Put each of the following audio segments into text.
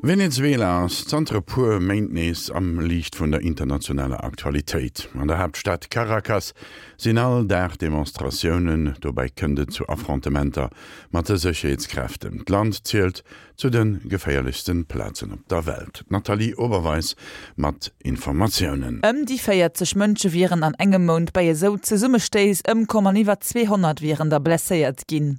Venezuela ass zanter e puer Méint nees am Liicht vun der internationaler Aktualitéit. An der Haaptstad Caracas sinn all Dag Demonstratiounen, dobäi kënnt et zu Affrontementer mat de Sécherheetskräften. D'Land zielt zu de geféierlechste Plazen op der Welt. D'Nathalie Oberweis mat Informatiounen. Ëm déi 40 Mënsche wieren an engem Mount bei esou Zesummestéiss ëmkomm an iwwer 200 wieren der blesséiert ginn.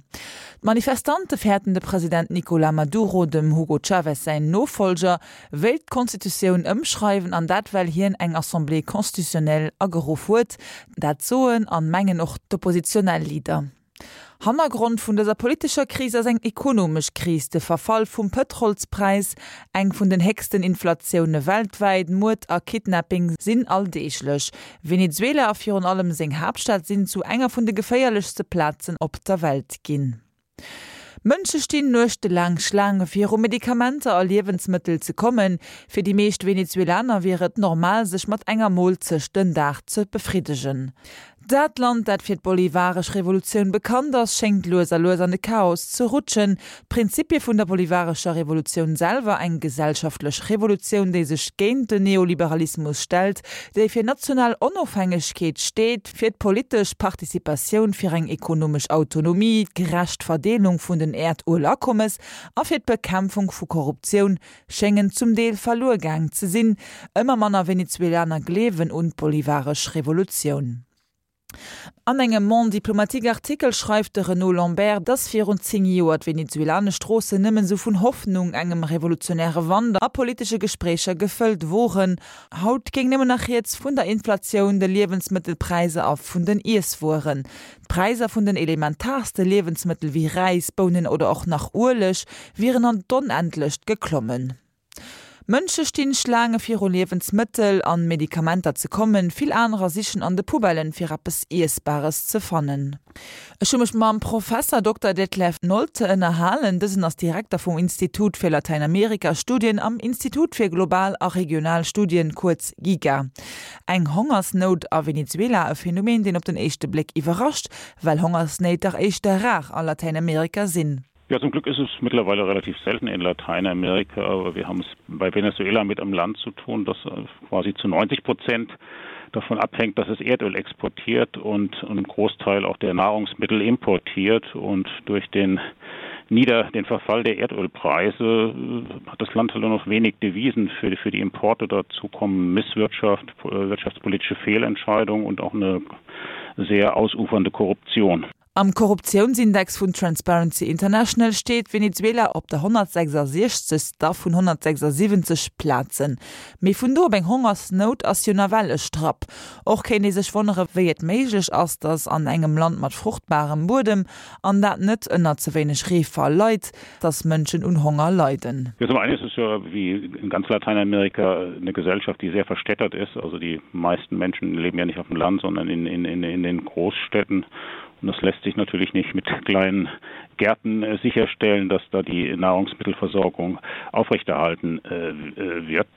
D'Manifestante fäerten, de President Nicolas Maduro, dem Hugo Chavez säin Nofollger, wéilt d'Constitutioun ëmschreiwen, an dat well hien eng Assemblée constitutionnelle ageruff huet. Dat soen an mengen och d'oppositionell Leader. Hannergrond vun dëser politescher Kris ass eng ekonomesch Kris, de Verfall vum Pëtrolspräis, eng vun den héchsten Inflatioune weltwäit, Muerd a Kidnapping sinn alldeeglech. Venezuela a virun allem seng Haaptstad sinn zu enger vun de geféierlechste Plazen op der Welt ginn. Mënsche stinn nuechtelaang Schlaange fir u Medikamenter a Liewensmëttel ze kommen. Fir déi meescht Venezuelaner wier et normal sech mat enger Moolzecht den Dag ze befriddegen. Dat Land, dat fir d'bolivaresch Revolutioun bekannt ass, schéngt lues a lues an de Chaos ze rutschen. D'Prinzipie vun der bolivarescher Revolutioun selwer, eng gesellschaftlech Revolutioun, déi sech géint den Neoliberalismus stellt, déi fir national Onofhängegkeet steet, fir d'politesch Participatioun, fir eng ekonomesch Autonomie, d'gerecht Verdeelung vun den Äerduelakommes a fir d'Bekämpfung vu Korruptioun, schéngen zum Deel verluer gaang ze sinn. Ëmmer manner Venezuelaner gleewen un d'bolivaresch Revolutioun. An engem Monde diplomatique Artikel schreift de Renaud Lambert, dass virun 10 Joer d'venezuelanesch Stroossen nëmmen esou vun Hoffnung, engem revolutionäre Wand a politesche Gespréicher gefëllt woren. Haut géing nëmmen nach rieds vun der Inflatioun, de Liewensmëttelpräiser a vun den Iesswueren. D'Präiser vun den elementaarste Liewensmëttel wéi Räis, Bounen oder och nach Ueleg wieren an d'Onendlecht geklommen. Mënsche stinn Schlaange viru Liewensmëttel an Medikamenter ze kommen, vill anerer sichen an de Poubellen fir eppes Iessbares ze fannen. Ech hu mech mam Professer Dokter Detlef Nolte ënnerhalen. Dësen ass Direkter vum Institut fir Latäinamerika-Studien am Institut fir global a regional Studien, kuerz GIGA. Eng Hongersnout a Venezuela, e Phänomen deen op den éischte Bléck iwwerrascht, well Hongersnéit dach éischter rar a Latäinamerika sinn. Ja, zum Glück ist es mittlerweile relativ selten in Lateinamerika, aber wir haben es bei Venezuela mit einem Land zu tun, das äh, quasi zu 90 Prozent davon abhängt, dass es Erdöl exportiert und einen Großteil auch der Nahrungsmittel importiert und durch den nieder den Verfall der Erdölpreise äh, hat das Land halt nur noch wenig Devisen für, für die Importe dazu kommen Misswirtschaft, äh, wirtschaftspolitische Fehlentscheidungen und auch eine sehr ausufernde Korruption. Am Korruptiounsindex vun Transparency International steet Venezuela op der 166. Vun 176 Plazen. Mee vun do op eng Hongersnout ass jo nawell e Strapp. Och kéint ee sech wonnere wéi et méiglech ass, datt an engem Land mat fruchtbarem Buedem, an dat net ënner ze wéineg Reefall leit, datt Mënschen un Honger leiden. Ja, zum einen ist es ja wie in ganz Lateinamerika eine Gesellschaft, die sehr verstädtert ist. Also die meisten Menschen leben ja nicht auf dem Land, sondern in, in, in, in den Großstädten. Und das lässt sich natürlich nicht mit kleinen Gärten äh, sicherstellen, dass da die Nahrungsmittelversorgung aufrechterhalten äh, äh, wird.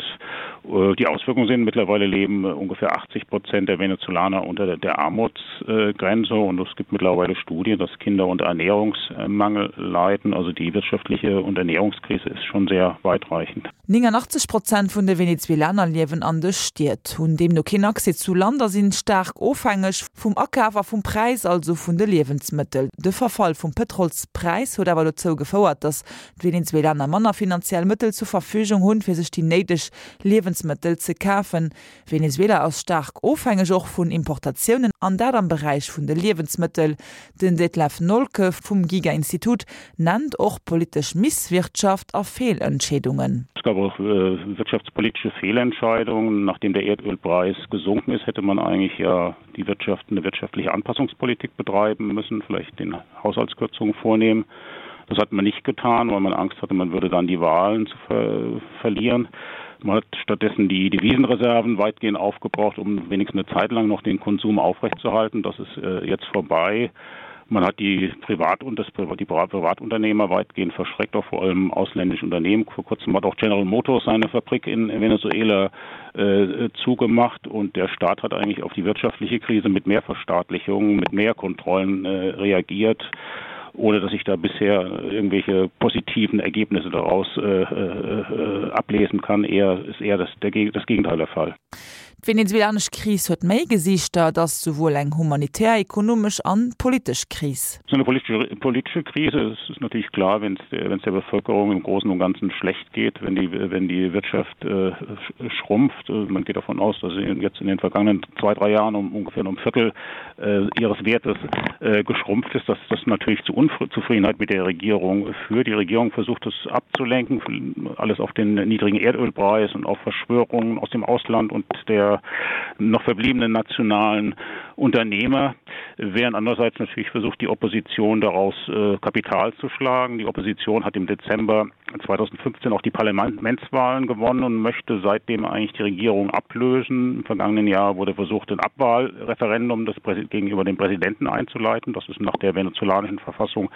Die Auswirkungen sind mittlerweile leben ungefähr 80 Prozent der Venezolaner unter der Armutsgrenze und es gibt mittlerweile Studien, dass Kinder unter Ernährungsmangel leiden. Also die wirtschaftliche und Ernährungskrise ist schon sehr weitreichend. 89 Prozent vun de Venezuelaner liewen an de Stied, hunn deemno keen Accès zu Land a sinn staark ofhängeg vum Akaf a vum Präis, also vun de Liewensmëttel. De Verfall vum Pëtrolspräis huet awer dozou gefouert, datt d'Venezuelaner manner finanziell Mëttel zur Verfügung hunn, fir sech déi néideg Liewensmëttel ze kafen. Venezuela ass staark ofhängeg och vun Importatiounen, an dat am Beräich vun de Liewensmëttel. Den Detlef Nolke vum GIGA-Institut nennt och politesch Misswirtschaft a Feelentscheedungen. Es gab auch wirtschaftspolitische Fehlentscheidungen. Nachdem der Erdölpreis gesunken ist, hätte man eigentlich ja die Wirtschaft eine wirtschaftliche Anpassungspolitik betreiben müssen, vielleicht den Haushaltskürzungen vornehmen. Das hat man nicht getan, weil man Angst hatte, man würde dann die Wahlen zu ver verlieren. Man hat stattdessen die Devisenreserven weitgehend aufgebraucht, um wenigstens eine Zeit lang noch den Konsum aufrechtzuerhalten. Das ist äh, jetzt vorbei. Man hat die Privat und das die Privatunternehmer weitgehend verschreckt, auch vor allem ausländische Unternehmen. Vor kurzem hat auch General Motors seine Fabrik in Venezuela äh, zugemacht und der Staat hat eigentlich auf die wirtschaftliche Krise mit mehr Verstaatlichungen, mit mehr Kontrollen äh, reagiert. ohne dass ich da bisher irgendwelche positiven Ergebnisse daraus äh, äh, ablesen kann. Eher ist eher das, der, das Gegenteil der Fall. D'venezuelanesch Kris huet méi Gesiichter, et ass souwuel eng humanitär, ekonomesch an politesch Kris. Es ist eine politische, politische Krise. Es ist natürlich klar, wenn es der Bevölkerung im Großen und Ganzen schlecht geht, wenn die, wenn die Wirtschaft äh, schrumpft. Äh, man geht davon aus, dass sie jetzt in den vergangenen zwei, drei Jahren um ungefähr um Viertel äh, ihres Wertes äh, geschrumpft ist, dass das natürlich zu Unzufriedenheit mit der Regierung führt. Die Regierung versucht es abzulenken, alles auf den niedrigen Erdölpreis und auf Verschwörungen aus dem Ausland und der noch verbliebenen nationalen Unternehmer, während andererseits natürlich versucht die Opposition daraus äh, Kapital zu schlagen. Die Opposition hat im Dezember 2015 auch die Parlamentswahlen gewonnen und möchte seitdem eigentlich die Regierung ablösen. Im vergangenen Jahr wurde versucht, ein Abwahlreferendum das gegenüber dem Präsidenten einzuleiten. Das ist nach der venezolanischen Verfassung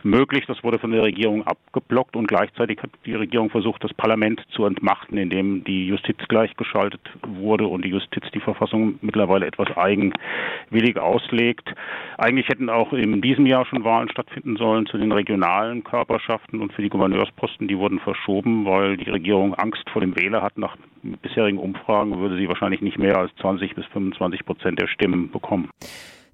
möglich. Das wurde von der Regierung abgeblockt und gleichzeitig hat die Regierung versucht, das Parlament zu entmachten, indem die Justiz gleichgeschaltet wurde und die Justiz die Verfassung mittlerweile etwas eigenwillig auslegt. Eigentlich hätten auch in diesem Jahr schon Wahlen stattfinden sollen zu den regionalen Körperschaften und für die Gouverneursposten, die wurden verschoben, weil die Regierung Angst vor dem Wähler hat. Nach bisherigen Umfragen würde sie wahrscheinlich nicht mehr als 20 bis 25 Prozent der Stimmen bekommen.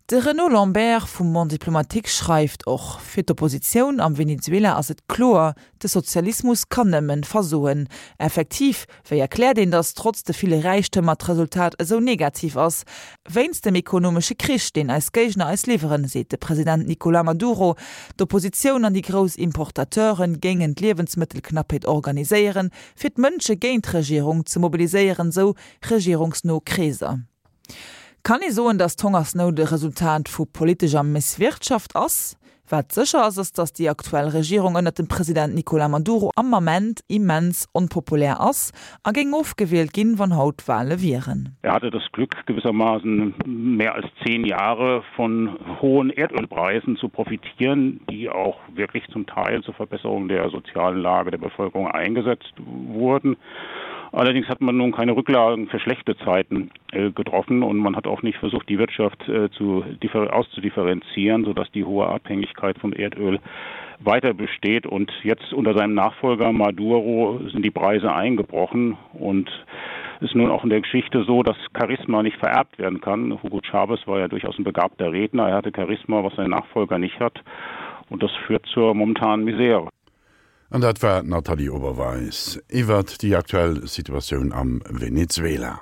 De Renaud Lambert vum Monde diplomatique schreift och, Fir d'Oppositioun am Venezuela ass et kloer, de Sozialismus kann nëmmen versoen. Effektiv, wéi erkläert een, datt trotz de ville Räichtëmmer d'Resultat esou negativ ass? Wéinst dem ekonomesche Krich, deen eis Géigner eis liwweren, seet de President Nicolas Maduro. D'Oppositioun an déi grouss Importateure géingen d'Liewensmëttelknappheet organiséieren, fir d'Mënsche géint d'Regierung ze mobiliséieren, sou regierungsno Kreeser. Kann ee soen, datt d'Hongersnout e Resultat vu politescher Misswirtschaft ass? Wat sécher ass, ass datt déi aktuell Regierung ënnert dem President Nicolas Maduro am Ament immens onpopulär ass a géing ofgewielt ginn, wann haut Wale wieren. Er hatte das Glück, gewissermaßen mehr als zehn Jahre von hohen Erdölpreisen zu profitieren, die auch wirklich zum Teil zur Verbesserung der sozialen Lage der Bevölkerung eingesetzt wurden. Allerdings hat man nun keine Rücklagen für schlechte Zeiten äh, getroffen und man hat auch nicht versucht, die Wirtschaft äh, zu, auszudifferenzieren, sodass die hohe Abhängigkeit vom Erdöl weiter besteht. Und jetzt unter seinem Nachfolger Maduro sind die Preise eingebrochen und ist nun auch in der Geschichte so, dass Charisma nicht vererbt werden kann. Hugo Chavez war ja durchaus ein begabter Redner. Er hatte Charisma, was sein Nachfolger nicht hat. Und das führt zur momentanen Misere. An dat war d'Nathalie Oberweis iwwert déi aktuell Situatioun am Venezuela.